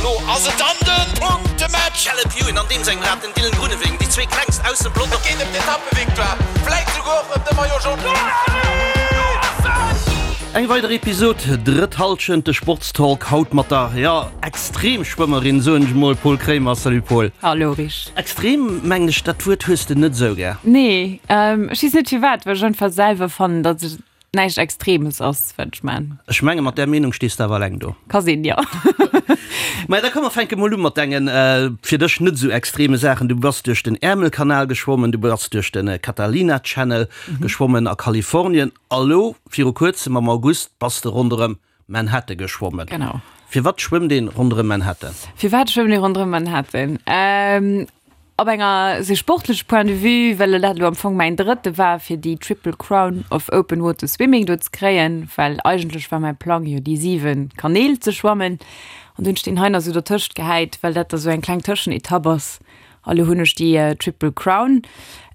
Elo ass et dann de Punktematch! Caleb Ewan an deem sengem Rad, den Dylan Groenewegen, déi zwee klengst aus dem Peloton. Et geet ëm d'Etappevictoire, vläit souguer och ëm de Maillot Jaune. Eng weider Episod, drëtt Hallschent, de Sportstalk haut mat der, jo, Extremschwëmmerin, soen ech mol, Paul Kremer. Salut Paul. Hallo Rich. Extrem, mengen ech, dat Wuert hues de net esou gär. Nee, ech weess net firwat, well ech einfach selwer fannen, datt et näischt Extremes ass, wat ech man. Ech menge mat där Meenung stees de awer eleng do. Ka sinn, jo. Maja, da komm mer fänke mol u mat dengen fir dech net esou extreme Saachen. Du bass duerch den Äermelkanal geschwommen, du bass duerch de Catalina Channel geschwommen a Kalifornien a lo viru kuerzem am August bass de ronderëm Manhattan geschwommen. Genau. Firwat schwëmmt een ronderëm Manhattan? Firwat schwëmmt ee ronderëm Manhattan? Op enger sou sportleche Point de vue, well dat elo am Fong mäin drëtte war, fir déi Triple Crown of Open Water Swimming do ze kréien, well eigentlech war mäi Plang jo déi 7 Kanäl ze schwammen an du hunn ech deen hei nach sou dertëscht gehäit, well dat da sou eng kleng Tëschenetapp ass a lo hunn ech déi Triple Crown.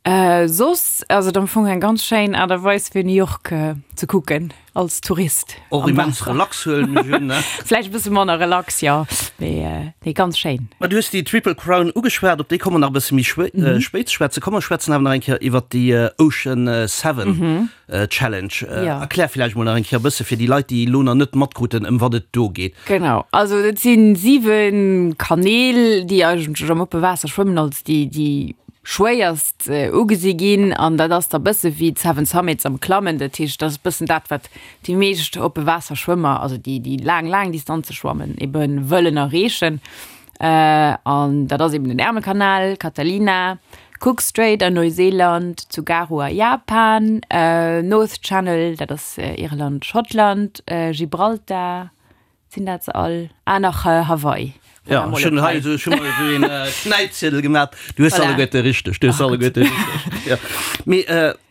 Soss ass et am Fong eng ganz schéin Aart a Weis fir New York ze kucken. Als Tourist. Och immens relax huelen ech un, ne? Vläicht e bësse manner relax, jo, mee nee, ganz schéin. Ma du hues déi Triple Crown ugeschwat, op déi komme mer nach e bësse méi spéit ze schwätzen. Komm mer schwätzen awer nach eng Kéier iwwert déi Ocean Seven Challenge. Erklär vläicht mol nach eng Kéier e bësse fir déi Leit, déi elo nach net matkruten, ëm wat et do geet. Genau, also dat si 7 Kanäl, déi eigentlech am oppe Waasser schwëmmen als déi déi schwéierst ugesi ginn an dat ass da bësse wéi d'Seven Summits am Klammen. Dat heescht, dat ass bëssen dat, wat déi meescht oppe Waasserschwëmmer, also déi déi laang, laang Distanze schwammen, ebe wëllen erreechen. An dat ass eben den Ärmelkanal, Catalina, Cook Strait an Neuseeland, Tsugaru a Japan, North Channel, dat ass Irland, Schottland, Gibraltar, Sinn dat se all? Ah, nach Hawaii. Ja, ech hunn hei esou, ech hu mer esou een Knäipziedel gemaat. Du hues se alleguerte richteg, du hues se alleguerte richteg. Ja. Mee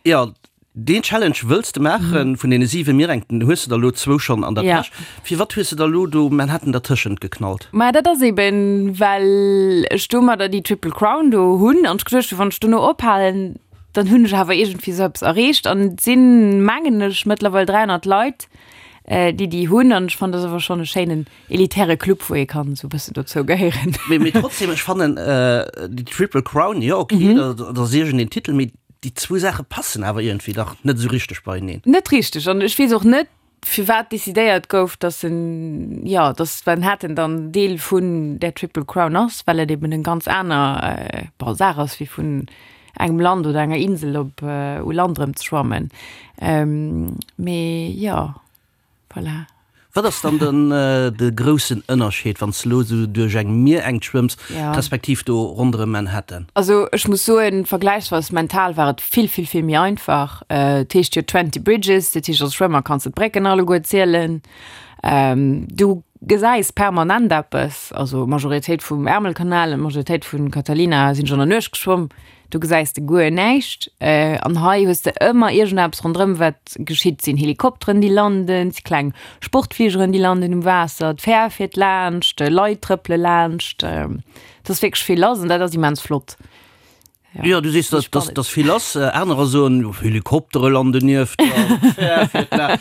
jo, deen Challenge wëlls de maachen, vun deene 7 Mierengten hues de der elo zwou schonn an der Täsch. Firwat hues de der elo do Manhattan dertëschent geknallt? Maja, dat ass eben, well ech domadder déi Triple Crown do hunn an ech geduecht hunn, wann ech dono ophalen, dann hunn ech awer iergendwéi esou eppes erreecht. An et sinn, mengen ech, mëttlerweil 300 Leit, déi déi hunn an ech fannen dat ass awer schonn e schéinen elitäre Club wou ee kann esou e bëssen dozou gehéieren. Mee mee trotzdem ech fannen déi Triple Crown jo ok dat ass iergendeen Titel mee déi zwou Saache passen awer iergendwéi dach net esou richteg beieneen. Net richteg an ech weess och net firwat decidéiert gouf dass en jo dass Manhattan dann Deel vun där Triple Crown ass well et eben en ganz aner bon Saach ass wéi vun engem Land oder enger Insel op u Land erëm ze schwammen. Mee jo, voilà. Wat ass dann den de groussen Ënnerscheed, wann s de elo esou duerch eng Mierengt schwëmms, respektiv do ronderëm Manhattan? Also ech muss soen, vergläichsweis mental war et vill, vill, vill méi einfach. Et heescht jo Twenty Bridges, dat heescht als Schwëmmer kanns de d'Brécken alleguer zielen. Du gesäis permanent eppes, also Majoritéit vum Ärmelkanal an Majoritéit vun Catalina sinn ech an der Nuecht geschwomm, do gesäis de guer näischt. An hei hues de ëmmer iergendeppes ronderëm wat geschitt, sinn Helikopteren déi landen, si kleng Sportfligeren déi landen um Waasser, d'Fähr fiert laanscht, Leit trëppele laanscht, et ass wierklech vill lass an dat ass immens flott. Jo, du sees, dass, dass, dass vill lass. Anerer soen, Helikoptere landen nieft der, d'Fähr fiert la.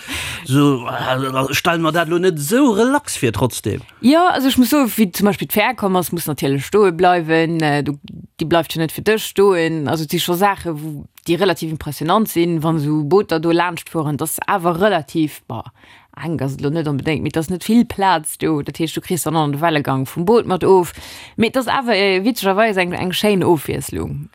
So, ech stelle mer dat elo net esou relax vir trotzdem. Jo, also ech muss soen, wéi zum Beispill d'Fähr komm ass, muss natierlech stoe bleiwen. Du, déi bleift jo net fir dech stoen. Also et si scho Saache wou, déi relativ impressionant sinn, wann esou Booter do laanscht fueren. Et ass awer relativ, bon, Enk ass et elo net onbedéngt, mee et ass net vill Plaz do. Dat heescht, du kriss dann och nach de Wellegang vum Boot mat of. Mee et ass awer witzegerweis eng, eng schéin Ofwiesslung.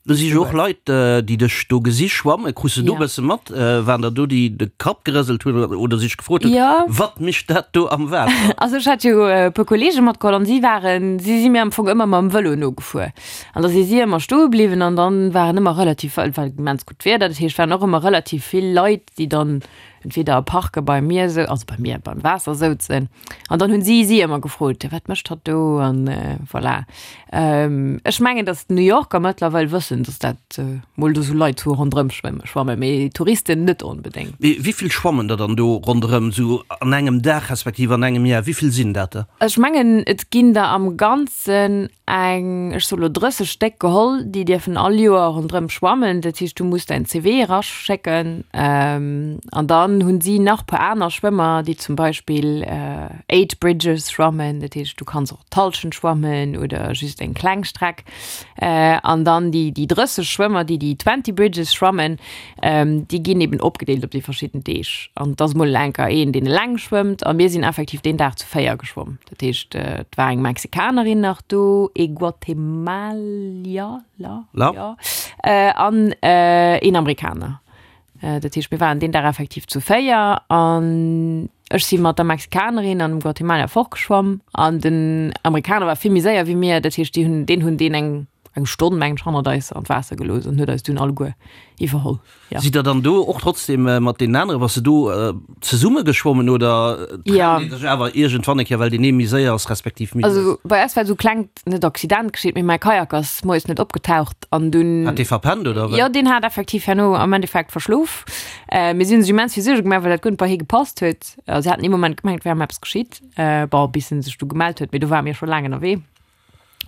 Do si jo och Leit, déi dech do gesi schwammen. Krus de do e bësse mat? Waren der do, déi de Kapp gerëselt hunn oder sech gefrot hunn, Wat mécht dat do am Waasser? Also ech hat jo e puer Kolleege matgeholl an si waren, si si mir am Fong ëmmer mam Vëlo nogefuer. An da si si ëmmer stoe bliwwen an dann waren ëmmer relativ, et war immens gutt Wieder, dat heescht, waren och ëmmer relativ vill Leit, déi dann entweder a Parke bei mir sou, also bei mir beim Waasser souzen an dann hunn si si ëmmer gefrot, wat mécht hatt do an voilà. Ech mengen, datt d'New Yorker mëttlerweil wëssen, datt dat mol do sou Leit hu ronderëm schwëmme schwammen, mee Touristen net onbedéngt. Mee wéi vill schwammen der dann do ronderëm sou an engem Dag respektiv an engem Jar? Wéi vill sinn dat der? Ech mengen et ginn der am Ganzen eng, ech soe lo 30 Stéck geholl, déi dierfen all Joer ronderëm schwammen. Dat heescht, du muss däin CV eraschécken an da. dann hunn si nach puer aner Schwëmmer, déi zum Beispill 8 Bridges schwammen, dat heescht du kanns och d'Hallschent schwammen oder just eng kleng Streck. An dann déi déi 30 Schwëmmer, déi déi 20 Bridges schwammen, déi ginn eben opgedeelt op déi verschidden Deeg. An et ass mol enker een, deen eleng schwëmmt a mir sinn effektiv deen Dag zu 4 geschwomm. Dat heescht, et war eng Mexikanerin nach do, ee Guatemalier, jo, an een Amerikaner. Dat heescht, mir waren deen Dag effektiv zu 4 an ech si mat der Mexikanerin an dem Guatemalier fortgeschwamm an den Amerikaner war vill méi séier wéi mir. Dat heescht, déi hunn, deen hunn deen eng, eng Stonn, mengen ech, hannert eis an d'Waasser gelooss an huet eis dunn alleguer iwwerholl. Ja. Sidd der dann do och trotzdem mat deenen aneren, bass de do zesumme geschwommen oder trennt ee sech awer iergendwann eng Kéier, well deen ee méi séier ass respektiv méi lues? Also bei eis war esou klengt net Accident geschitt, mee mäi Kajak ass moies net opgetaucht an dunn. Hat dee verpennt oder wéi? Jo, deen hat effektiv herno am Endeffekt verschlof. Mir si hunn sech immens vill Suerge gemaach, well dat guer net bei hie gepasst huet. A si haten ee Moment gemengt, et wär ëm eppes geschitt. Bon, bis en sech du gemellt huet, mee do ware mir scho laang ënnerwee.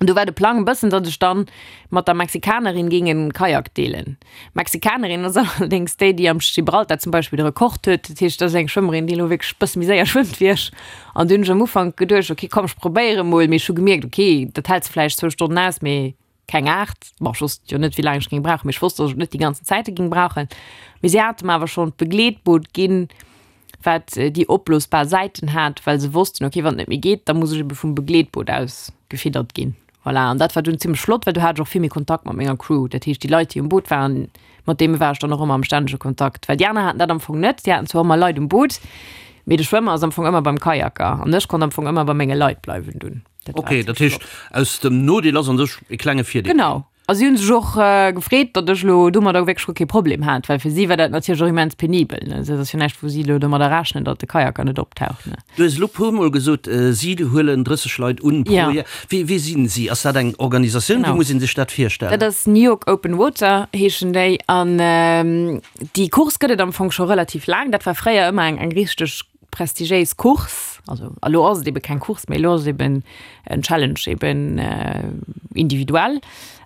An du war de Plang e bëssen, datt ech dann mat der Mexikanerin géing en Kajak deelen. D'Mexikanerin ass allerdéngs déi, déi am Gibraltar zum Beispill de Rekord huet. Dat heescht, dat ass eng Schwëmmerin, déi elo wierklech e bësse méi séier schwëmmt wéi ech. An du hunn ech am Ufank geduecht, ok, komm, ech probéiere mol. Mee ech hu gemierkt, ok, dat hält se vläicht zwou Stonnen aus, mee keng 8. Bon, ech wosst jo net, wéi laang ech géing brauchen, mee ech wosst, datt ech et net déi ganzen Zäite géing brauchen. Mee si hate mer awer schonn d'Begleetboot ginn, wat déi opblosbar Säiten hat, well se wossten, ok, wann et net méi geet, da muss ech ebe vum Begleetboot aus gefiddert ginn. Voilà, an dat war dunn zimmlech flott, well du hat ech och vill méi Kontakt mat menger Crew. Dat heescht, déi Leit, déi um Boot waren, mat deene war ech dann och ëmmer am stännege Kontakt. Well déi aner haten dat am Fong net. Déi haten zwar ëmmer Leit um Boot, mee de Schwëmmer ass am Fong ëmmer beim Kajaker an ech konnt am Fong ëmmer bei menge Leit bleiwen dunn. Dat war Okay, dat heescht, aus dem Nodeel ass an sech e klenge Virdeel. Genau. A si hunn sech och gefreet, datt ech elo domadder wierklech guer kee Problem hat, well fir si war dat natierlech och immens penibel, ne. Dat ass jo näischt, wou si elo domadder rechnen, datt de Kajaker net optaucht, ne. Du hues elo puer Mol gesot, si huelen 30 Leit un pro Joer. Wie, wie sinn si? Ass dat eng Organisatioun? Wéi muss ee sech dat virstellen? Dat ass New York Open Water heeschen déi. An déi Course gëtt et am Fong scho relativ laang. Dat war fréier ëmmer eng, eng richteg prestigiéis Course, also elo ass et ebe keng Course méi, elo ass et eben en Challenge eben individuell,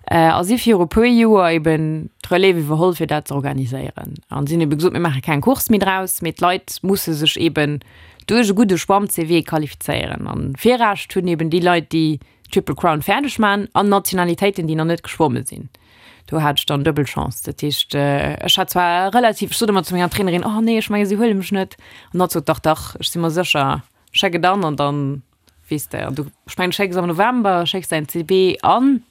a si viru puer Joer eben d'Relève iwwerholl fir dat ze organiséieren. An si hunn ebe gesot, mir maache keng Course méi draus, mee d'Leit musse sech eben duerch e gudde Schwamm-CV qualifizéieren. An Virrecht hunn eben déi Leit, déi Triple Crown fäerdeg man an Nationalitéiten, déi nach net geschwomme sinn. Do hat ech dann duebel Chance. Dat heescht, ech hat zwar relativ, ech sot ëmmer zu menger Trainerin, oh nee, ech menge si huele mech net. An hatt sot, dach, dach, ech si mer sécher, schéck et an an dann weess de. An du, ech mengen, du schécks am November, schécks däin CV an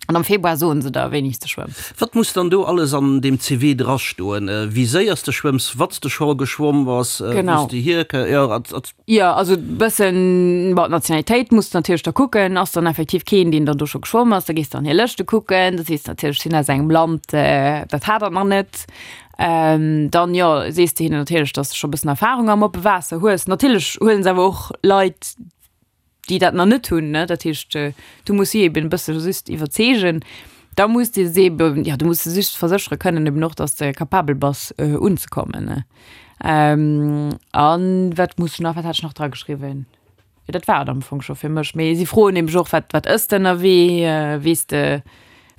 an am Februar soen se der, wéini s de schwëmms. Wat muss dann do alles an deem CV drastoen? Wéi séier s de schwëmms, wat s de scho geschwomm bass, wou s de hierkë, jo, Jo, also bëssen, bon, d'Nationalitéit muss de natierlech da kucken, ass dann effektiv keen, deen dann do scho geschwomm ass, da gees de an hir Lëschte kucken, da sees de natierlech, ech sinn aus engem Land, dat hat dat nach net. Dann, jo, sees de hinnen natierlech, dass de scho bëssen Erfarung am oppe Waasser hues. Natierlech huelen se awer och Leit, déi dat nach net hunn, ne, dat heescht, du muss si eben e bësse just iwwerzeegen. Da muss de se eben, jo, du muss se just verséchere kënnen eben och, dass de capabel bass unzekommen, ne. An wat muss ech nach, wat hat ech nach dra geschriwwen? Jo, dat war et am Fong scho fir mech. Mee si froen nämlech och, wat, wat ëss de ënnerwee? Weess de,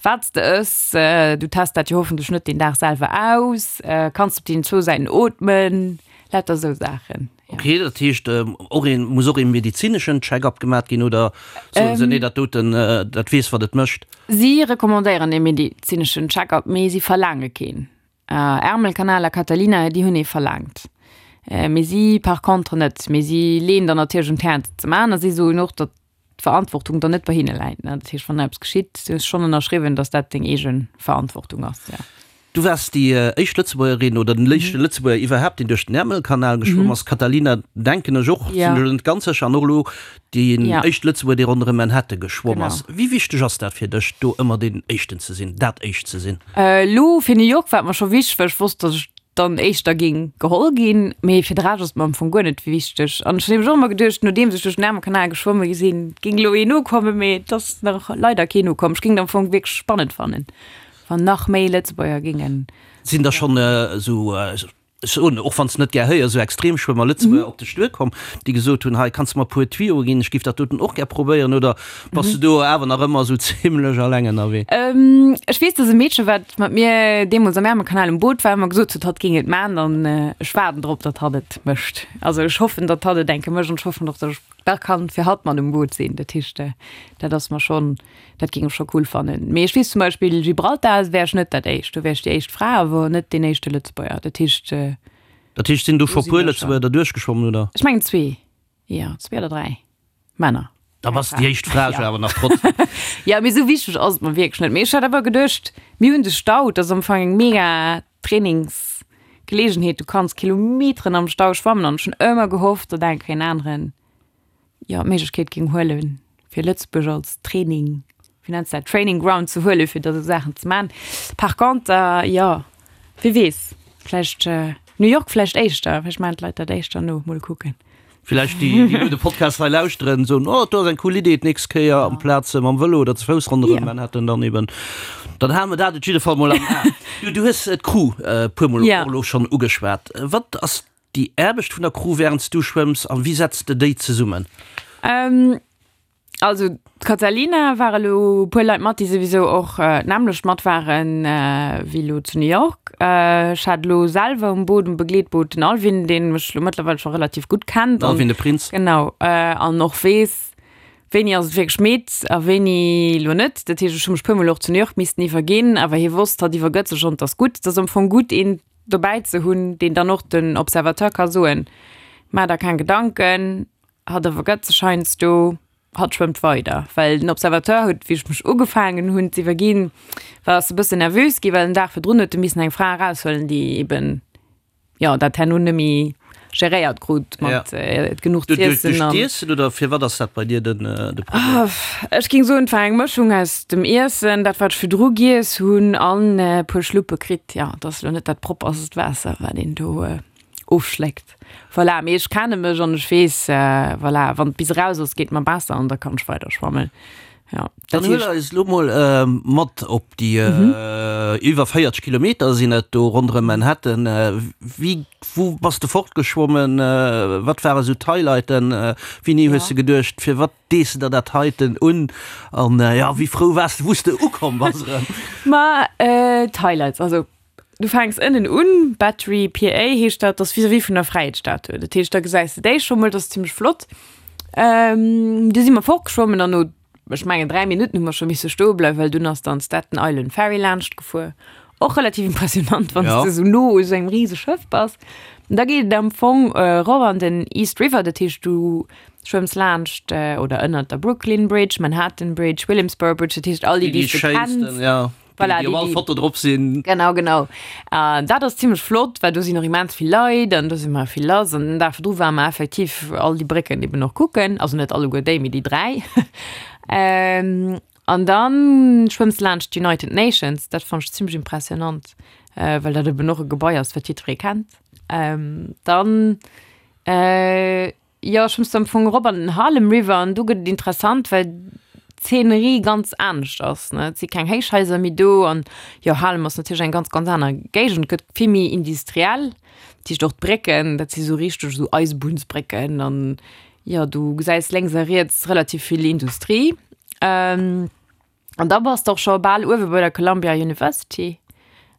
wat s de ëss? Du test dat jo hoffentlech net deen Dag selwer aus. Kanns de op deenen zwou Säiten ootmen? Lauter esou Saachen, jo. Ok, dat heescht och een, muss och ee medezineschen Check-up gemat ginn oder soen se, nee, dat doten, dat weess wat et mécht? Si recommandéieren ee medezineschen Check-up, mee si verlaange keen. Ärmelkanal a Catalina, déi hunn ee verlaangt, mee si par contre net. Mee si leeën der natierlech un d'Häerz et ze maachen a si soen och, datt d'Verantwortung dann net bei hinne läit. Dat heescht, wann eppes geschitt, du hues schonn ënnerschriwwen, datt dat deng eege Verantwortung ass, jo. Du waars déi éischt Lëtzebuergerin oder den éischte Lëtzebuerger iwwerhaapt, deen duerch den Ärmelkanal geschwomm ass. Catalina, denken ech och, sinn ech elo net ganz sécher, an och elo Deen éischte Lëtzebuerger, dee ronderëm Manhattan geschwomm ass. Wéi wichteg ass dat fir dech, do ëmmer deen Éischten ze sinn, dat Éischt ze sinn? Elo fir New York war et mer scho wichteg, well ech wosst, datt ech dann Éischter géing geholl ginn. Mee fir de Rescht ass et mer am Fong guer net wichteg. An ech hunn nämlech och ëmmer geduecht, nodeems ech duerch den Ärmelkanal geschwomme sinn, géing elo een nokommen, mee et ass nach leider keen nokomm. Ech géing et am Fong wierklech spannend fannen, wann nach méi Lëtzebuerger géingen. Sinn der schonn esou. Ech soen, och wann s net gär héier, esou Extremschwëmmer, Lëtzebuerger op dech duerkomm, déi gesot hunn, hei kanns de mer e puer Tuyauxe ginn, ech géif dat doten och gär probéieren, oder bass de do awer nach ëmmer esou zimlech alleng ënnerwee? Ech weess, dass e Meedche, wat mat mir deemools am Ärmelkanal um Boot war, ëmmer gesot huet, hatt géing et maachen an ech waarden drop, datt hatt et mécht. Also ech hoffen, datt hatt et eng Kéier mécht an ech hoffen och, datt ech da kann fir hatt mat um Boot sinn. Dat heescht, dat ass mer schonn, dat géing ech scho cool fannen. Mee ech weess zum Beispill, Gibraltar wär ech net dat éischt, do wär ech déi éischt Fra, awer net deen éischte Lëtzebuerger. Dat heescht. Dat heescht, sinn do scho puer Lëtzebuerger derduerch geschwommen, oder? Ech mengen zwee, jo, zwee oder dräi Männer. Da bass de déi éischt Fra jo awer nach trotzdem. Jo, mee esou wichteg ass et mer wierklech net. Mee ech hat awer geduecht, mir hunn de Stau, dat ass am Fong eng mega Trainingsgeleegenheet, du kanns Kilometeren am Stau schwammen an ech hunn ëmmer gehofft, datt eng Kéier en aneren jo d'Méiglechkeet géing huelen, fir Lëtzebuerg als Training, wéi nenns de dat, Training Ground ze huelen, fir da sou Saachen ze man. Par conter, jo, wie weess, vläicht New York vläicht éischter, vläicht maachen d'Leit dat éischter no, mol kucken. Villäicht déi, déi elo de Podcast hei lauschteren, soen, oh, do ass eng cool Idee, d'nächst Kéier amplaz mam Vëlo oder ze Fouss ronderëm Manhattan dann eben. Dann hale mer dat op jidde Fall mol am A. Du, du hues d'Crew e puermol och elo schonn ugeschwat. Wat ass déi Aarbecht vun der Crew wärend s du schwëmms a wéi setz de déi zesummen? Also d'Katalina war elo e puer Leit mat, déi souwisou och d'nämmlecht mat waren wéi elo zu New York. Ech hat elo selwer um Boot, um Begleetboot den Alvin, deen mech elo mëttlerweil scho relativ gutt kennt. Den Alvin de Prinz. Genau, an och weess, wéini ass et wierklech midd a wéini elo net. Dat heescht, ech hu mech puer Mol och zu New York missten iwwerginn, awer hie wosst, hatt iwwergëtt sech an et ass gutt. Et ass am Fong gutt, een dobäi ze hunn, deen dann och den Observateur ka soen, Maach der keng Gedanken, Hatt iwwergëtt sech heiansdo, hatt schwëmmt weider. Well den Observateur huet, wéi ech mech ugefaangen hunn z'iwwerginn, war ass e bëssen nervös ginn, well den Dag virdrun huet e missen eng Fra eraushuelen, déi eben, jo, dat herno net méi geréiert krut mat genuch z'iessen. Duerch d'Iessen oder firwat ass dat bei dir den de Problem? Ech géing soen, et war eng Mëschung aus dem Iessen, dat wat ech virdru giess hunn, an e puer Schluppe kritt. Jo, et ass elo net dat propperst Waasser, wat een do ofschléckt. Voilà, mee ech kenne mech an ech weess, voilà, wann et bis eraus ass, geet mer besser an da kann ech weider schwammen. Ja, dat Dann huel eis elo mol mat op déi iwwer 40 Kilometer sinn et do ronderëm Manhattan. Wéi, wou bass de fortgeschwommen? Wat ware sou d'Highlighten? Wéini hues de geduecht, firwat dees de der dat heiten un? An jo, wéi frou waars de, wou s de ukomm bass erëm? Ma d'Highlights, also Du fänks ënnen un, Battery PA heescht dat, dat ass vis-à-vis vun der Fräiheetsstatue. Dat heescht, da gesäis de déi scho mol, dat ass zimmlech flott. Du si mer fortgeschwommen an no, ech mengen 3 Minutten hu mer scho misse stoe bleiwen, well dunn ass dann d'Staten Island Ferry laanscht gefuer. Och relativ impressionant, wann s de esou no u sou engem rise Schëff bass. An da geet et am Fong erof an den East River, dat heescht du schwëmms laanscht oder ënnert der Brooklyn Bridge, Manhattan Bridge, Williamsburg Bridge, dat heescht all déi, déi s de kenns. Voilà, déi, déi op all Foto drop sinn. Genau, genau. Uh, dat ass zimmlech flott, well do sinn och immens vill Leit an do si mer vill lass. An den Dag virdru ware mer effektiv all déi Brécken eben och kucken. Also net alleguer déi, mee déi 3. ähm, an dann schwëmms de laanscht d'United Nations. Dat fannt ech zimmlech impressionant, äh, well dat eben och e Gebai ass, wat jiddweree kennt. Ähm, dann äh, Jo, ech muss am Fong erop an den Harlem River an do gëtt et interessant, well d'Zeenerie ganz anescht ass, ne. Et si keng Héichhaiser méi do an jo, Harlem ass natierlech eng ganz, ganz aner Géigend, gëtt vill méi industriell. Dat heescht och d'Brécken, dat si sou richteg esou Eisebunnsbrécken an jo, du gesäis lénks a riets relativ vill Industrie. An da bass de och scho bal uewe bei der Columbia University.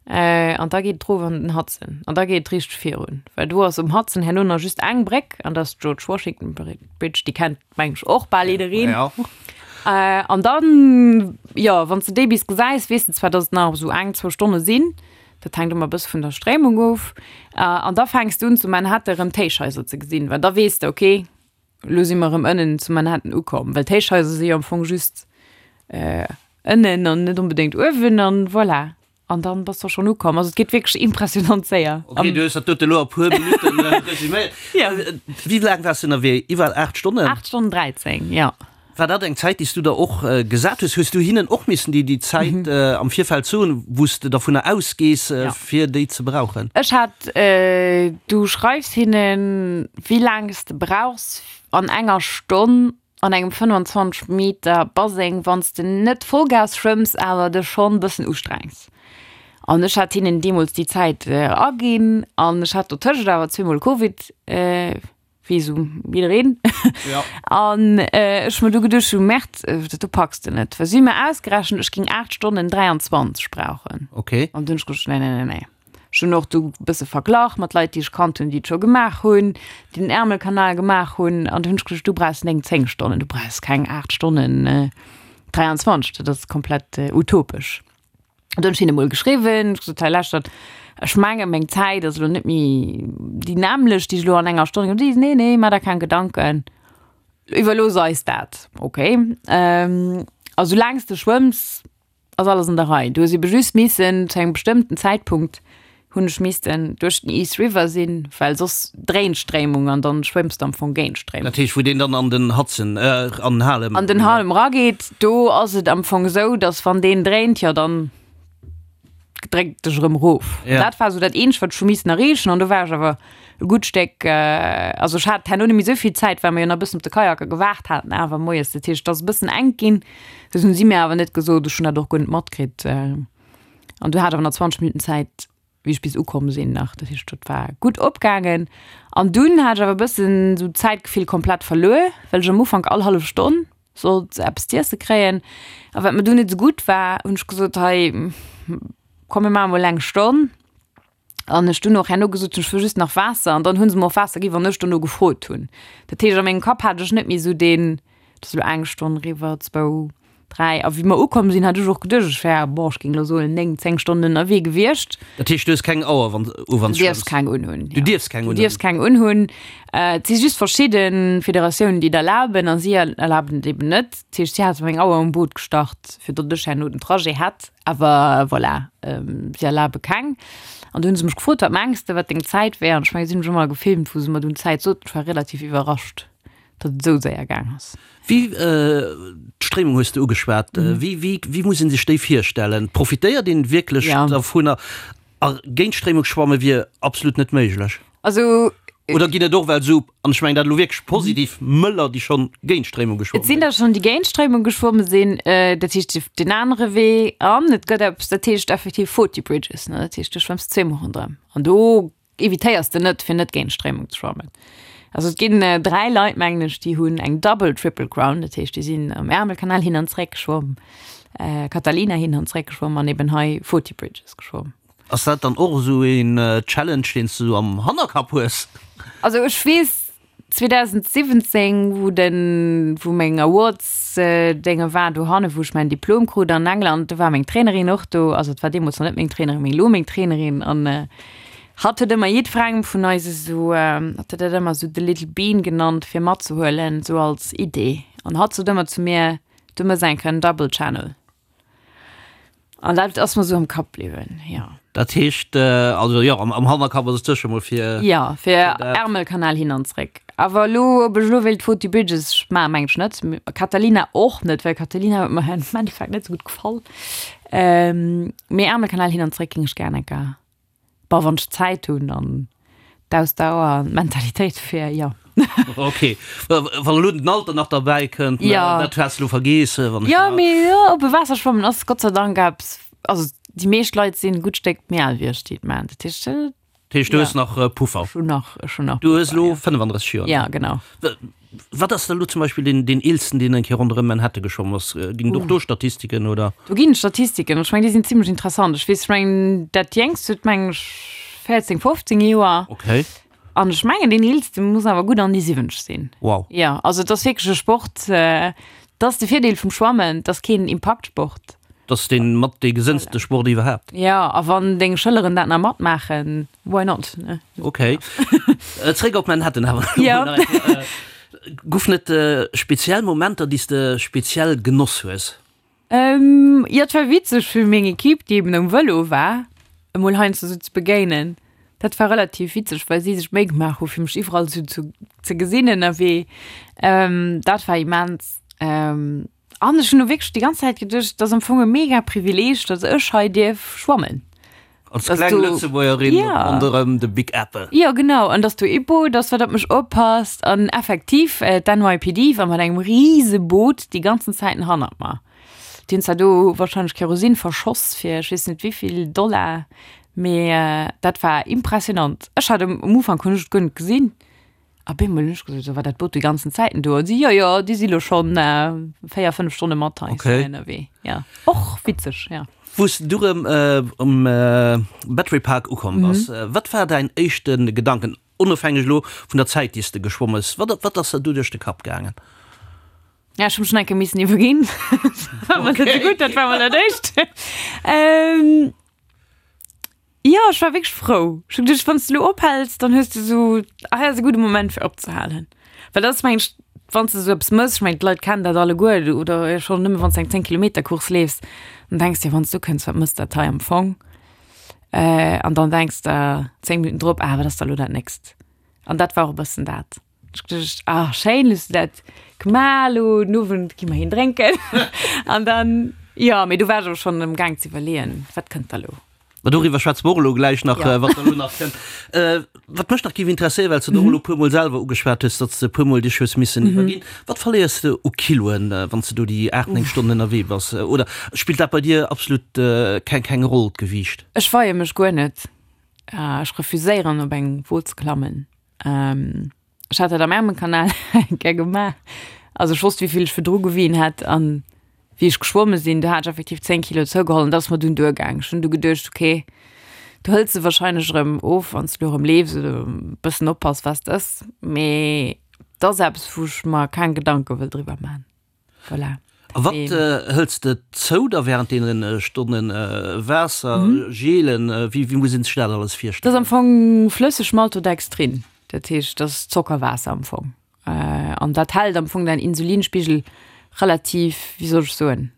An da geet et erof an den Hudson. An da geet et richteg virun, well do ass um Hudson herno nach just eng Bréck, an dat ass d'George Washington Bridge, déi kennt, meng ech, och bal jiddereen. Ja. An dann, jo, wann s de déi bis gesäis, weess de zwar, datt et nach esou eng, zwou Stonne sinn. Dat hänkt ëmmer e bësse vun der Stréimung of. An da fänks de un, zu Manhattan erëm d'Héichhaiser ze gesinn, well da weess de, okay, Elo si mer erëm ënnen zu Manhattan ukomm, well d'Héichhaiser si jo am Fong just ënnen an net onbedéngt uewen an voilà. An dann bass de och schonn ukomm. Also et geet wierklech impressionant séier. Ok, du hues dat dote elo a puer Minutten resuméiert. Jo. Wéi laang waars de ënnerwee? Iwwer 8 Stonnen? 8 Stonnen 13, jo. War dat eng Zäit, déi s du der och gesat hues? Hues du hinnen och missen déi déi Zäit am Virfeld soen, wou s de dervunner ausgees, fir déi ze brauchen? Ech hat, du schreifs hinnen, wéi laang s de brauchs an enger Stonn an engem 25 Meter Baseng, wann s de net Vollgas schwëmms, awer dech schonn e bëssen ustrengs. An ech hat hinnen deemools déi Zäit aginn an ech hat dotëscht awer zweemol Covid, wéi esou jiddereen. An ech hu mer du geduecht, du Merde, dat do packs de net. Well si hu mer ausgerechent, ech géing 8 Stonnen 23 brauchen. Okay. An dunn hu ech geduecht, nee, nee, nee, nee. Ech hunn och du e bësse verglach mat Leit, déi ech kannt hunn, déi et scho gemaach hunn, déi den Ärmelkanal gemaach hunn. An du hunn ech geduecht, du brauchs 9, 10 Stonnen, du brauchs keng 8 Stonnen 23, dat ass komplett utopesch. An du hunn ech hinne mol geschriwwen, ech gesot, hei lauschtert, ech menge meng Zäit ass elo net méi déi nämmlecht, déi ech elo an enger Stonn. Déi, nee, nee, maach der keng Gedanken, iwwerlooss eis dat. Okay. A soulaang s de schwëmms, Ass alles an der Rei. Du hues ebe just missen zu engem bestëmmten Zäitpunkt hunn ech missten duerch den East River sinn, well soss dréint d'Stréimung an dann schwëmms de am Fong géint d'Stréimung. Dat heescht, wou deen dann an den Hudson, an den Harlem. An den Harlem erageet, do ass et am Fong esou, dass wann deen dréint, jo dann dréckt dech erëm erof. Ja. Dat war esou dat eenzegt, wat ech hu missen erreechen an do war ech awer e gutt Stéck, also ech hat herno net méi esou vill Zäit, well mer jo nach e bëssen op de Kajaker gewaart haten awer moies. Dat heescht, et ass e bëssen enk ginn. Dat hunn si mir awer net gesot, ech hunn dat och guer net matkritt. An du hat awer nach 20 Minutten Zäit, wéi ech bis ukomm sinn nach. Dat heescht, dat war gutt opgaangen. An dunn hat ech awer e bëssen esou d'Zäitgefill komplett verluer, well ech am Ufank all hallef Stonn sollt eppes z'iesse kréien. A wat mir dunn net esou gutt war, hunn ech gesot, hei komm mir maache mol eng Stonn. An ech dunn och herno gesot hunn, ech wëll just nach Waasser. An dann hu se mer och Waasser ginn, wann ech dono gefrot hunn. Dat heescht, a mengem Kapp hat ech net méi esou deen, et ass elo eng Stonn eriwwer, zwou, dräi. A wéi mer ukomm sinn, hat ech och geduecht, ech wär, boah, ech géing elo soen, néng, zéng Stonnen ënnerwee gewiescht. Dat heescht, du hues keng Auer, wann u wann Du dierfs keng unhunn. Du dierfs keng unhunn? Du dierfs keng unhunn. Et si just verschidde Federatiounen, déi et erlaben, a si erlaben et eben net. Dat heescht, si hate meng Auer um Boot gestart, fir datt ech herno den Trajet hätt. Awer voilà, si erlabe keng. An du hunn se mech gefrot, wat mengs de, wat deng Zäit wär? An ech mengen, si hunn mech emol gefilmt, wou se mer dunn d'Zäit soten. Ech war relativ iwwerrascht, datt et esou séier gaang ass. Wéi, d'Stréimung hues de ugeschwat, wéi, wéi, wéi muss ee sech déi virstellen? Profitéiert een wierklech dervunner? A géint d'Stréimung schwamme wier absolut net méiglech? Also. Oder ginn et och well esou, an ech mengen dat elo wierklech positiv, Mëller, déi schonn géint d'Stréimung geschwomme sinn? Et sinn der schonn, déi géint d'Stréimung geschwomme sinn. Dat heescht, deen anere Wee. An et gëtt eppes, dat heescht effektiv 40 Bridges, ne? Dat heescht, du schwëmms zweemol ronderëm. An do evitéiers de net, fir net géint d'Stréimung ze schwammen. Also et ginn 3 Leit, mengen ech, déi hunn eng Double Triple Crown, dat heescht, déi sinn am Ärmelkanal hin an zréck geschwomm, Catalina hin an zréck geschwomm an eben hei 40 Bridges geschwomm. Ass dat dann och esou een Challenge, deen s du esou am Hannerkapp hues? Also ech weess 2017, wou den, wou meng Awards Dénge war dohanne, wou ech mäin Diplom krut an England, do war meng Trainerin och do, also et war deemools nach net meng Trainerin, mee elo meng Trainerin an hatt huet ëmmer jiddwerengem vun eis esou, hatt huet dat ëmmer esou the little bean genannt, fir matzehuelen, esou als Idee an hatt sot ëmmer zu mir, du mëss eng Kéier en Double Channel. An dat ass mer sou am Kapp bliwwen, jo. Dat heescht, also jo, am Hannerkapp ass et sécher mol fir. Jo, fir Ärmelkanal hin an zréck. Awer elo, ob ech elo wéilt Forty Bridges maachen, mengen ech net. Catalina och net, well Catalina huet mer am Endeffekt net sou gutt gefall. Mee Ärmelkanal hin an zréck géing ech gär eng Kéier. Bon, wann ech Zäit hunn an d'Ausdauer an d'Mentalitéit fir, jo. Ok, wann elo den Alter nach derbäi kënnt, jo. Dat has de elo vergeess, wann ech. Jo, mee jo, oppe Waasser schwammen ass Gott sei Dank eppes, also déi meescht Leit sinn e gutt Stéck méi al wéi ech, déi et maachen. Dat heescht. Dat heescht, du hues nach Puffer? Ech hunn nach, ech hunn nach Puffer, jo. Du hues elo 35 Joer? Ja, genau. Wat ass da elo zum Beispill deen, deen eelsten, deen eng Kéier ronderëm Manhattan geschwomm ass? Ginn et och do Statistiken, oder? Do ginn et Statistiken. Ech mengen, déi sinn zimlech interessant. Ech weess, ech mengen, dat Jéngst huet, mengen ech, 14, 15 Joer. Okay. An ech mengen, deen eelste muss awer gutt an déi 70 sinn. Wow. Jo, also et ass wierklech e Sport, dat ass de Virdeel vum Schwammen, et ass keen Impaktsport. Et ass dee mat dee gesënnste Sport iwwerhaapt. Jo, a wann deng Schëlleren dat nach matmaachen, Why not, ne? Ok. Zréck op Manhattan awer. Jo. Goufen et speziell Momenter, déi s de speziell genoss hues? Jo, et war witzeg fir meng Equipe, déi eben um Vëlo war, emol heiansdo sou ze begéinen. Dat war relativ witzeg, well si sech Méi gemaach hu fir mech iwwerall sou ze gesinn ënnerwee. Dat war immens. An ech hunn och wierklech déi ganz Zäit geduecht, et ass am Fong e mega Privileeg, datt ech hei dierf schwammen. Als kleng Lëtzebuergerin ronderëm de Big Apple. Jo, genau. An datt do ee Boot ass, wat op mech oppasst. An effektiv, d'NYPD war mat engem rise Boot déi ganzen Zäiten hannert mer. Déi hunn zwar do warscheinlech Kerosin verschoss fir ech weess net wéivill Dollar, mee dat war impressionant. Ech hat um Ufank hunn ech et guer net gesinn. A bemol hunn ech gesot, so war dat Boot déi ganzen Zäiten do? An si, jo, jo, déi si lo schonn 4, 5 Stonne mat eis Okay. ënnerwee. Ja, och witzeg, ja. Wou s du rëm um Battery Park ukomm bass, wat war däin éischte Gedanken, onofhängeg elo vun der Zäit, déi s de geschwomm hues? Wat, wat ass der du duerch de Kapp gaangen? Ja, ech hu mech schon eng Kéier missen iwwerginn. Dat war mol net esou gutt, dat war mol dat Éischt. Jo, ech war wierklech frou. Ech hu geduecht, wann s de elo ophäls, dann hues de esou, ah hei ass e gudde Moment fir opzehalen. Well dat ass mengen ech, wann s de esou eppes mëss, ech mengen d'Leit kennen dat alleguer, oder schonn nëmme wann s de eng 10 Kilometer Course leefs, dann denks de, wann s du kënns, wat mëss dat hei am Fong? An dann denks de 10 Minutten drop, ah wat ass da elo dat nächst? An dat war och e bëssen dat. Ech geduecht, ah schéin, hues du dat gemaach, elo den Owend gi mer een drénken. An dann, jo, mee du war ech awer schonn am Gaang ze iwwerleeën, wat kënnt da elo? Ma doriwwer schwätze mer och elo gläich nach, Ja. wat da elo nach kënnt. Wat mech nach géif interesséieren, well s de et och elo e puermol selwer ugeschwat hues, datt s de e puermol dech hues missen iwwerginn, Wat verléiers de u Kiloen, wann s de do déi 8, 9 Stonnen ënnerwee bass? Oder spillt dat bei dir absolut keng, keng Roll, d'Gewiicht? Ech weie mech guer net. Ech refuséieren, op eng Wo ze klammen. Ech hat dat am Ärmelkanal eng Kéier gemaach. Also ech wosst, wéi vill ech virdru gewien hat an wéi ech geschwomme sinn, do hat ech effektiv 10 Kilo zougeholl an dat ass mer dunn duergaang. Ech hunn du geduecht, okay, du hëls se warscheinlech erëm of, wann s du elo erëm leefs oder e bëssen oppass, wat s de ëss. Mee dat ass eppes, wou ech mer keng Gedanke wëll driwwer man. Voilà. A wat hëls de zou da während deene Stonnen? Waasser, Gelen, wéi wéi muss een sech dat alles virstellen? Dat ass am Fong flësseg Maltodextrin, dat heescht dat ass Zockerwaasser am Fong. An dat hält am Fong däin Insulinspigel relativ, wéi soll ech soen,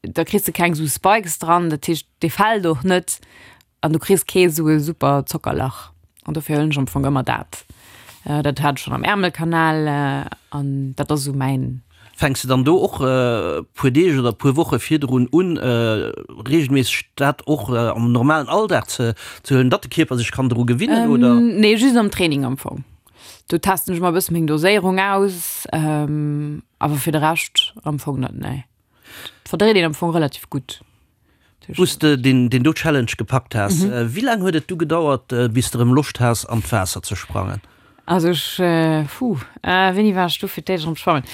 da kriss de keng esou Spikes dran, dat heescht dee fält och net. An du kriss kee sou e super Zockerlach. An dofir huelen ech am Fong ëmmer dat. Dat hat ech schonn am Ärmelkanal an dat ass esou mäin. Fänks de dann do och e puer Deeg oder e puer Woche virdrun un, reegelméisseg dat och am normalen Alldag ze huelen, datt de Kierper sech kann dru gewinnen, oder? Nee, just am Training am Fong. Do testen ech emmer e bësse meng Doséierung aus, awer fir de Rescht am Fong net, nee. Verdréit een am Fong relativ gutt. Wou s de deen do Challenge gepackt has, wéi laang huet et du gedauert, bis de rëm Loscht has an d'Waasser ze sprangen? Also ech, puh, wéini war ech du fir d'éischt erëm schwammen?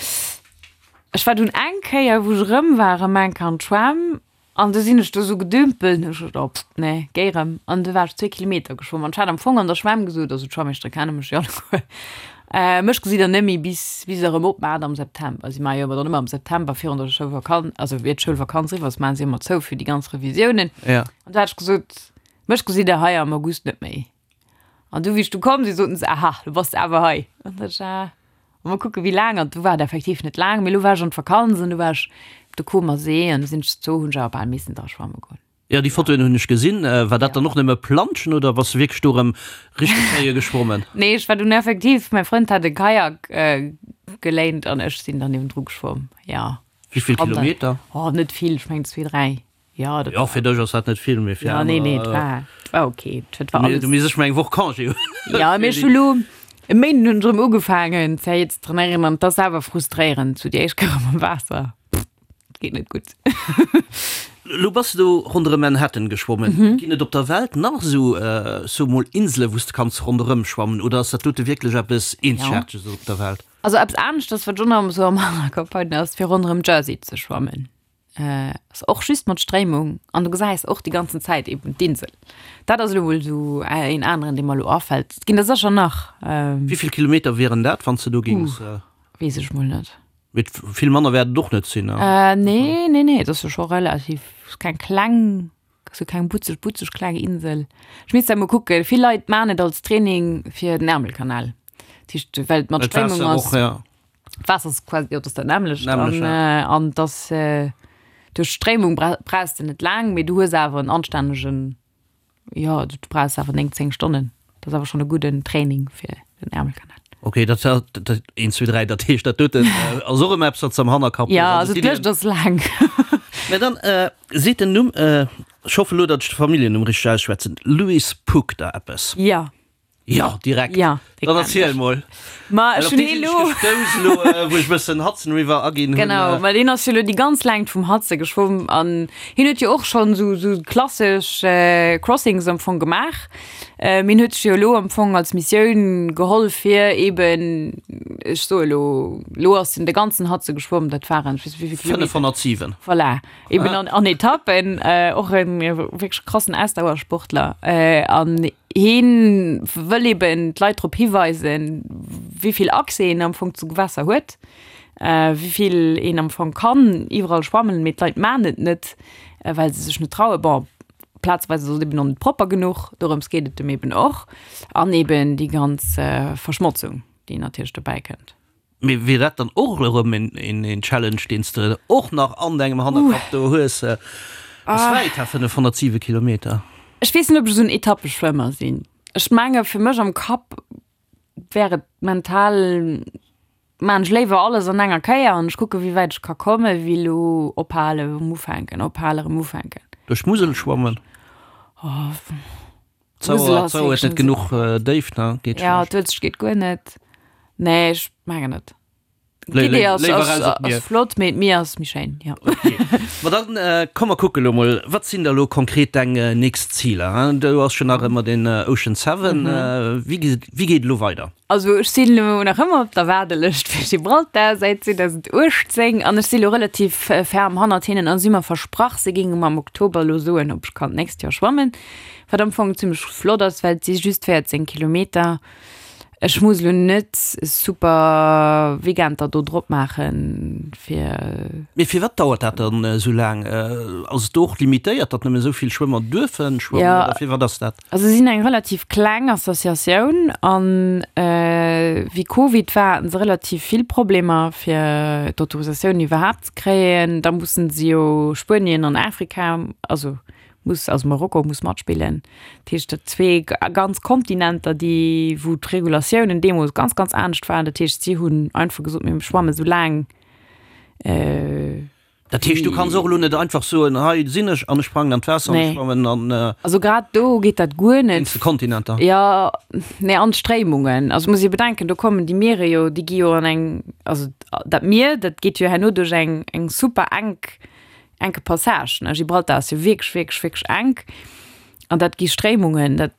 Ech war dunn eng Kéier, wou ech erëm war, erëm eng Kéier an d'Schwämm an du sinn ech do sou gedümpelt an hu ech geduecht, oh pff, nee, géi erëm. An du war ech zwee Kilometer geschwomm an ech hat am Fong an der Schwämm gesot, also d'Schwammeeschtere kenne mech jo alleguer, Mech gesitt der net méi bis bis se erëm opmaacht am September. Si maache jo ëmmer dann ëmmer am September virun der Schoulvakanz, also ier d'Schoulvakanz eriwwer ass, maache si ëmmer zou fir déi ganz Revisiounen. Ja. An du hat ech gesot, mech gesitt der hei am August net méi. An du wéi ech du komm sinn, soten se, aha, du bass awer hei. An da sot ech, ah, mol kucke wéi laang. An du war et effektiv net laang, mee elo war ech an d'Vakanz an du war ech op de Comer See an du sinn ech zou, hunn ech awer bal missen dra schwamme goen. Jo, déi Fotoen hunn ech gesinn. War dat dann och nëmme Planschen oder bass de wierklech do erëm richteg séier geschwommen? Nee, ech war dunn effektiv, mäi Frënd hat e Kajak geléint an ech sinn dann niewendru geschwomm, jo. Wéi vill Kilometer? Oh, net vill, ech mengen zwee, dräi. Jo, dat war. Jo, fir dech ass dat net vill, mee fir aner. Jo, nee, nee, et war, et war ok. Et war alles. Du misst ech mol eng Woch Congé hunn. Jo, mee ech hu lo e Méinden hunn ech erëm ugefaangen zéi ze trainéieren an et ass awer frustréierend, sou déi éischt Kéier erëm am Waasser. Geet net gutt. Lo bass de do ronderëm Manhattan geschwommen. Ginn et op der Welt nach esou, so mol, Insele wou s de kanns ronderëm schwammen oder ass dat dote wierklech eppes Eenzegaarteges op der Welt? Also eppes aneschters, wat ech och nach esou am Hannerkapp hunn, ass fir ronderëm Jersey ze schwammen. Ass och just mat Stréimung an du gesäis och déi ganzen Zäit eben d'Insel. Dat ass elo mol esou een aneren, dee mer elo afält. Et ginn der sécher nach. Wéi vill Kilometer wieren dat, wann s de do géings? Weess ech mol net. Mee vill manner wäert et och net sinn, ne? Nee, nee, nee, et ass jo scho relativ, ass keng kleng, ass jo keng butzeg, butzeg kleng Insel. Ech misst dat mol kucken. Vill Leit maachen et als Training fir den Ärmelkanal. Dat heescht, well et mat Stréimung ass. Well d'Waasser och, ja. D'Waasser ass quasi, jo, et ass dat nämmlecht. Nämmlecht, ja. An, an et ass, duerch d'Stréimung brauchs de net laang, mee du hues awer en anstännegen Jo, du brauchs awer 9, 10 Stonnen. Dat ass awer schonn e gudden Training fir den Ärmelkanal. Ok, dat dat 1, 2, 3, dat heescht dat doten ass och ëmmer eppes wat s de am Hannerkapp hues. Ja, also d'Lëscht ass laang. Mä dann seet den Numm, ech hoffen elo, datt ech de Familljennumm richteg ausschwätzen, Louis Puck der eppes? Ja. Jo, direkt. Ja, dee Dann erziel mol. Ma ech hunn hee lo. Gestouss elo, wou ech bëssen Hudson River aginn hunn. Genau, ma deen ass jo elo déi ganz Längt vum Hudson geschwomm an hien huet jo och schonn esou esou klassesch Crossings am Fong gemaach. Mee hien huet sech jo elo am Fong als Missioun geholl fir eben, ech soe elo, elo ass en de ganzen Hudson geschwomm, dat waren, ech weess net wéi vill Kilometer. 507. Voilà. Eben an, an Etappen, och en wierklech krassen Ausdauersportler an Heen wëll eben d'Leit drop hiweisen, wéi vill Accès een am Fong zu Gewässer huet, wéi vill een am Fong kann iwwerall schwammen, mee d'Leit maachen et net, well se sech net trauen. Bon, plazeweis ass et eben och net propper genuch, dorëms geet et em eben och. An eben déi ganz Verschmotzung, déi natierlech dobäi kënnt. Mee wier dat dann och erëm een Challenge, deen s de och nach an dengem Hannerkapp do hues? Ass wäit, ha, 507 Kilometer. Ech weess net, ob ech esou en Etappeschwëmmer sinn. Ech menge fir mech am Kapp wär et mental, maan ech léiwer alles an enger Kéier an ech kucke wéi wäit ech ka komme wéi elo ophalen, erëm ufänken, ophalen, erëm ufänken. Duerch d'Musel schwammen? D'Sauer huet net genuch Déift, ne? Geet schlecht. Ja, d'Uelzecht geet guer net. Nee, ech mengen net. D'Idee ass, ass, ass flott, mee d'Mier ass méi schéin, jo. Okay. Ma dann komm mer kucke lo mol, wat sinn da lo konkret deng nächst Ziler? Do ass jo nach ëmmer den Ocean Seven. Wéi, wéi geet et elo weider? Also ech sinn elo nach ëmmer op der Waardelëscht fir Gibraltar säit 2018 an ech si lo relativ ferm hannert hinnen a si hu mer versprach, se géinge mer am Oktober elo soen, ob ech kann d'nächst Joer schwammen, wat am Fong zimmlech flott ass, well et si just 14 Kilometer. Ech muss elo net e super Weekend der do drop maachen, fir. Mee firwat dauert dat dann esou laang? Ass et do och limitéiert, datt nëmmen esou vill Schwëmmer duerfe schwammen oder firwat ass dat? Also si sinn eng relativ kleng Associatioun an wéi Covid war, haten se relativ vill Problemer fir d'Autorisatioun iwwerhaapt ze kréien. Da mussen se jo Spuenien an Afrika, also muss, also Marokko muss matspillen. Dat heescht dat zwee ganz Kontinenter, déi wou d'Regulatiounen deemools ganz, ganz anescht waren. Dat heescht si hunn einfach gesot, mir schwamme sou laang. Dat heescht, du kanns och elo net einfach soen, hei sinn ech an ech sprangen an d'Waasser an ech schwammen an. Also grad do geet dat guer net. Wéinst de Kontinenter? Jo, nee, an d'Stréimungen. Also muss ee bedenken, do kommen déi Miere jo, déi gi jo an eng, also dat Mier, dat geet jo herno duerch eng, eng super enk, enke Passage, ne. Gibraltar ass jo wierklech, wierklech, wierklech enk an dat gi Stréimungen, dat.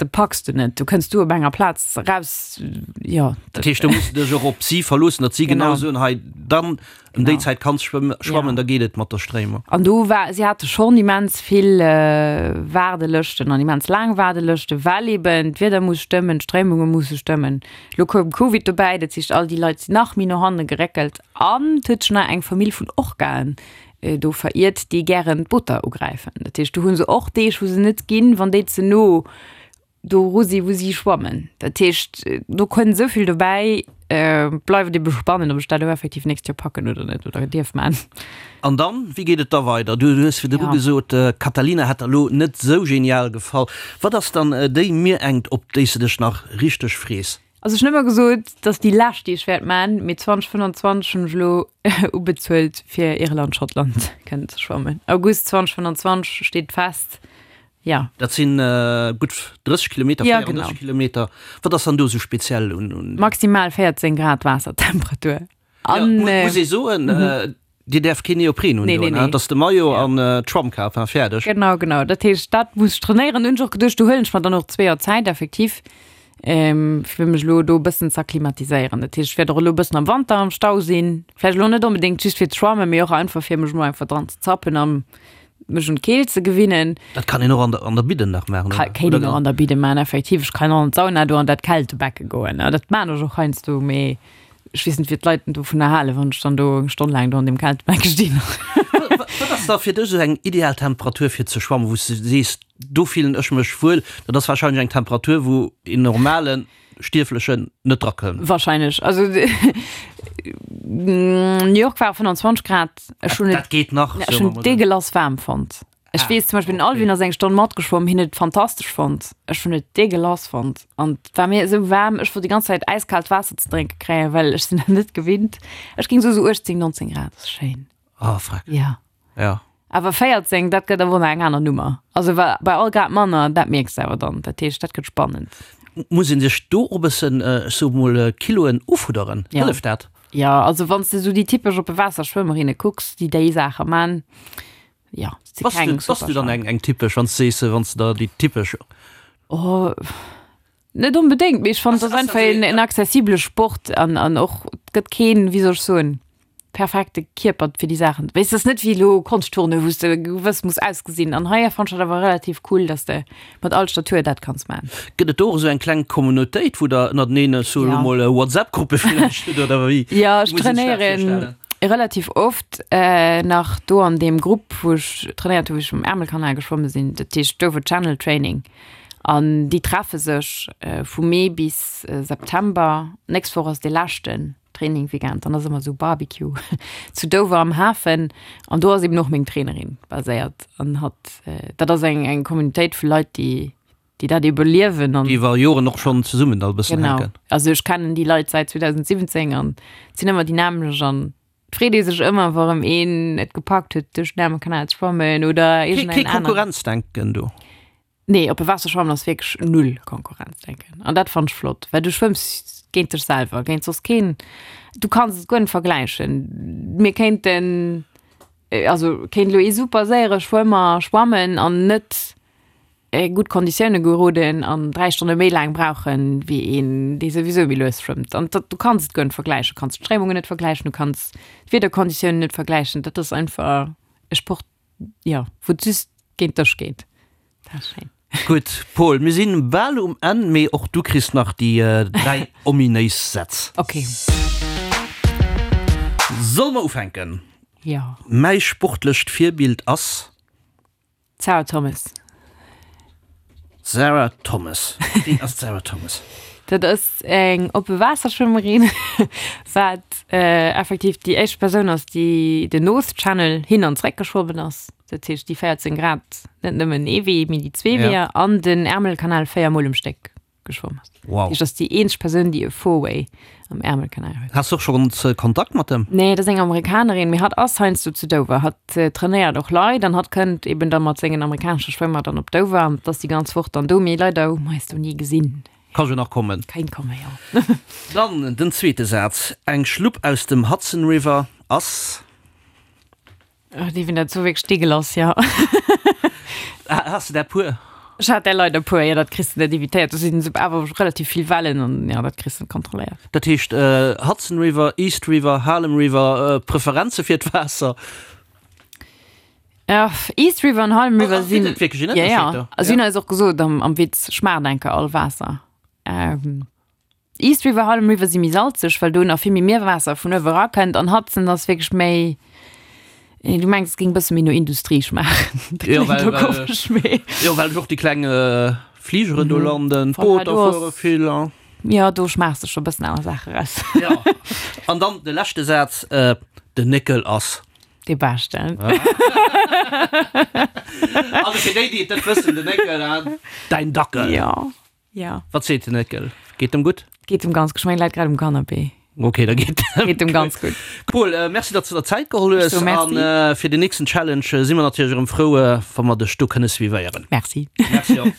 Dat packs de net, du kënns du op enger Plaz eraus, jo. Dat heescht, do muss de dech och op si verloossen, datt si genau soen, hei dann ëm déi Zäit kanns schwammen, da geet et mat der Stréimung. An do war, si hate schonn immens vill Waardelëschten an immens laang Waardelëschten, well eben d'Wieder muss stëmmen, d'Stréimunge musse stëmmen. Elo koum Covid dobäi, dat heescht all déi Leit sinn nach méi no hanne geréckelt an et huet sech nach eng Famill vun Orcaen do veriert, déi gären d'Booter ugräifen. Dat heescht, do hu se och Deeg, wou se net ginn, wann déi ze no doru si wou si schwammen. Dat heescht, do kënnt esou vill dobäi. Bleift et ebe spannend, ob ech dat elo effektiv d'nächst Joer packen oder net oder dierf man. An dann, wéi geet et da weider? Du hues virdru gesot, Catalina hätt der elo net esou genial gefall. Wat ass dann déi Mierengt, op déi s de dech nach richteg frees? Also ech hunn ëmmer gesot, dat ass déi lescht déi ech wäert man, mee 2025 hunn ech elo ubezuelt fir Irland, Schottland kënnen ze schwammen. August 2025 steet fest, jo. Dat sinn gutt 30 Kilometer, 34 Kilometer. Wat ass dann do esou speziell un? Maximal 14 Grad Waassertemperatur. An, ja, muss ee soen, mhm. Dir däerf keen Neopren un, nee, nee, nee. Dass de Maillot ja. an äh, d'Schwammkap war fäerdeg. Genau, genau. Dat heescht, dat muss ech trainéieren. Hunn ech och geduecht, do huelen ech mer dann och zwee Joer Zäit effektiv, ähm, fir mech elo do e bëssen z'akklimatiséieren. Dat heescht, ech wäert och elo e bëssen am Wanter am Stau sinn. Vläicht elo net onbedéngt just fir ze schwammen, mee och einfach fir mech mol einfach dran ze zappen an mech un d'Keelt ze gewinnen. Dat kann een och an der, an der Bidden nach maachen, oder? Kéint een och an der Bidde maachen, effektiv. Ech kann och an d'Sauna do an dat Kältebecke goen. Dat maan ech och heiansdo, mee Ech weess net, wéi d'Leit dovunner halen, wann ech dann do eng Stonn laang do an deem Kältebecke stinn. Wat ass da fir dech esou eng ideal Temperatur fir ze schwammen, wou s de sees, do fillen ech mech wuel? Dat ass warscheinlech eng Temperatur, wou een normale Stierflechen net drakënnt. Warscheinlech. Also New York war 25 Grad. Ech hunn et, Dat geet nach, ech hunn et deegelass waarm fonnt. Ech weess zum Beispill den Alvin ass eng Stonn matgeschwomm, hien huet et fantastesch fonnt. Ech hunn et deegelass fonnt an et war mir esou waarm, ech wollt déi ganz Zäit äiskaalt Waasser ze drénke kréien, well ech sinn dat net gewinnt. Ech géing soe sou 18, 19 Grad ass schéin. Ah freck. Ja. Ja. Awer 14, dat gëtt awer nach eng aner Nummer. Also wa bei all Grad manner, dat mierks de awer dann. Dat heescht, dat gëtt spannend. Muss een sech do och e bëssen, ech soe mol, Kiloen ufudderen? Hëlleft dat? Jo, also wann s de esou déi typesch oppe Waasser-Schwëmmerinne kucks, déi déi Saache man, jo, si keng super. Bass du dann eng typesch, wann s de sees, wann s de der déi typesch. Oh, net onbedéngt, mee ech fannen, et ass einfach en accessibele Sport an an och et gëtt keen, wéi soll ech soen, perfekte Kierper fir déi Saachen. Weess, et ass net wéi elo Konschtturne, wou s de gewëss muss ausgesinn. An hei fannen ech dat awer relativ cool, dass de mat all Statur dat kanns maachen. Gëtt et do och esou eng kleng Communautéit, wou der ënnerteneen esou elo mol WhatsApp-Gruppe villäicht hutt oder wéi? Jo, ech trainéieren relativ oft nach do an deem Grupp, wou ech trainéiert hu wou ech um Ärmelkanal geschwomme sinn, dat heescht Dover Channel Training. An déi treffe sech vu Mee bis September. Nächst Woch ass dee leschten. Training Weekend, dann ass ëmmer esou Barbecue zu Dover am Hafen an do ass eben och meng Trainerin baséiert an hatt, dat ass eng eng Communautéit vu Leit, déi déi dat ebe liewen an. Déi iwwer Joren och schonn zesummen da e bëssen Genau, hänken. also ech kennen déi Leit säit 2017 an et sinn ëmmer déi nämmlecht an et freet ee sech ëmmer, wa rëm een et gepackt huet duerch den Ärmelkanal ze schwammen oder Kee iergendeen kee aneren. Konkurrenzdenken do? Nee, oppe Waasser schwammen ass wierklech null Konkurrenzdenken. An dat fannt ech flott, well du schwëmms géint dech selwer, géint soss keen. Du kanns et guer net vergläichen. Mir kéinten, also kéint elo ee super séiere Schwëmmer schwammen an net gutt Konditioune geroden an 3 Stonne méi laang brauchen, wéi een, dee souwisou méi lues schwëmmt. An dat, du kanns et guer net vergläichen. Du kanns d'Stréimungen net vergläichen, du kanns d'Wiederkonditiounen net vergläichen. Dat ass einfach e Sport, Jo, wou et just géint dech geet. Dat ass schéin. Gutt, Paul, mir sinn bal um Enn, mee och du kriss nach déi 3 ominéis Sätz. Ok. Solle mer ufänken? Jo. Mäi sportlecht Virbild ass? D'Sarah Thomas. Sarah Thomas. Wien ass d'Sarah Thomas? Dat ass eng oppe Waasserschwëmmerin, wat effektiv déi éischt Persoun ass, déi den North Channel hin an zréck geschwommen ass. Dat heescht déi 14 Grad, net nëmmen ee Wee, mee déi zwee Weeër an den Ärmelkanal 4 Mol um Stéck geschwomm ass. Wow. Dat heescht, ass déi eenzeg Persoun, déi e Four-Way am Ärmelkanal huet. Has du och schonns Kontakt mat em? Nee, dat ass eng Amerikanerin, mee hatt ass heiansdo zu Dover. Hatt trainéiert och Leit an hatt kënnt eben da mat sengen amerikanesche Schwëmmer dann op Dover an ass déi ganz Woch dann do. Mee leider hu mer eis do ni gesinn. Ka jo nach kommen. Kéint kommen, jo. Dann den zweete Saz, Eng Schlupp aus dem Hudson River ass. Ach, déi wien dat so wierklech sti gelass, ja. Has de där puer? Ech hat där leider puer, jo, dat kriss de net evitéiert. Do sinn awer relativ vill Wellen an ja, dat kriss de net kontrolléiert. Dat heescht Hudson River, East River, Harlem River, Preferenze fir d'Waasser? Ja, East River an Harlem River sinn. Gëtt et wierklech en Ënnerscheed do? Ja, ja. Si hunn eis och gesot am, am Witz, schmaacht enker all Waasser. East River, Harlem River si méi salzeg, well do nach vill méi Mierwaasser vun uewe rakënnt an Hudson ass wierklech méi, du mengs et géing e bësse méi no Industrie schmaachen. Dat kléngt elo komesch, mee. Jo, well och déi kleng Fligeren do landen, d'Booter fuere vill a. Jo, do schmaachs de scho e bëssen aner Saache raus. Jo, an dann de leschte Saz, Den Néckel ass. Dee Beschten. Also fir déi, déi et net wëssen, den Néckel, däin Dackel. Jo. Ja. Wat seet den Néckel? Geet em gutt? Geet em ganz gutt. Ech mengen, läit grad um Canapé. Ok, da geet em Geet em ganz gutt. Cool, merci, datt s de der Zäit geholl hues. Ech soe merci. An fir den nächsten Challenge si mer natierlech erëm frou, wa mer dech do kënne suivéieren. Merci. Merci och.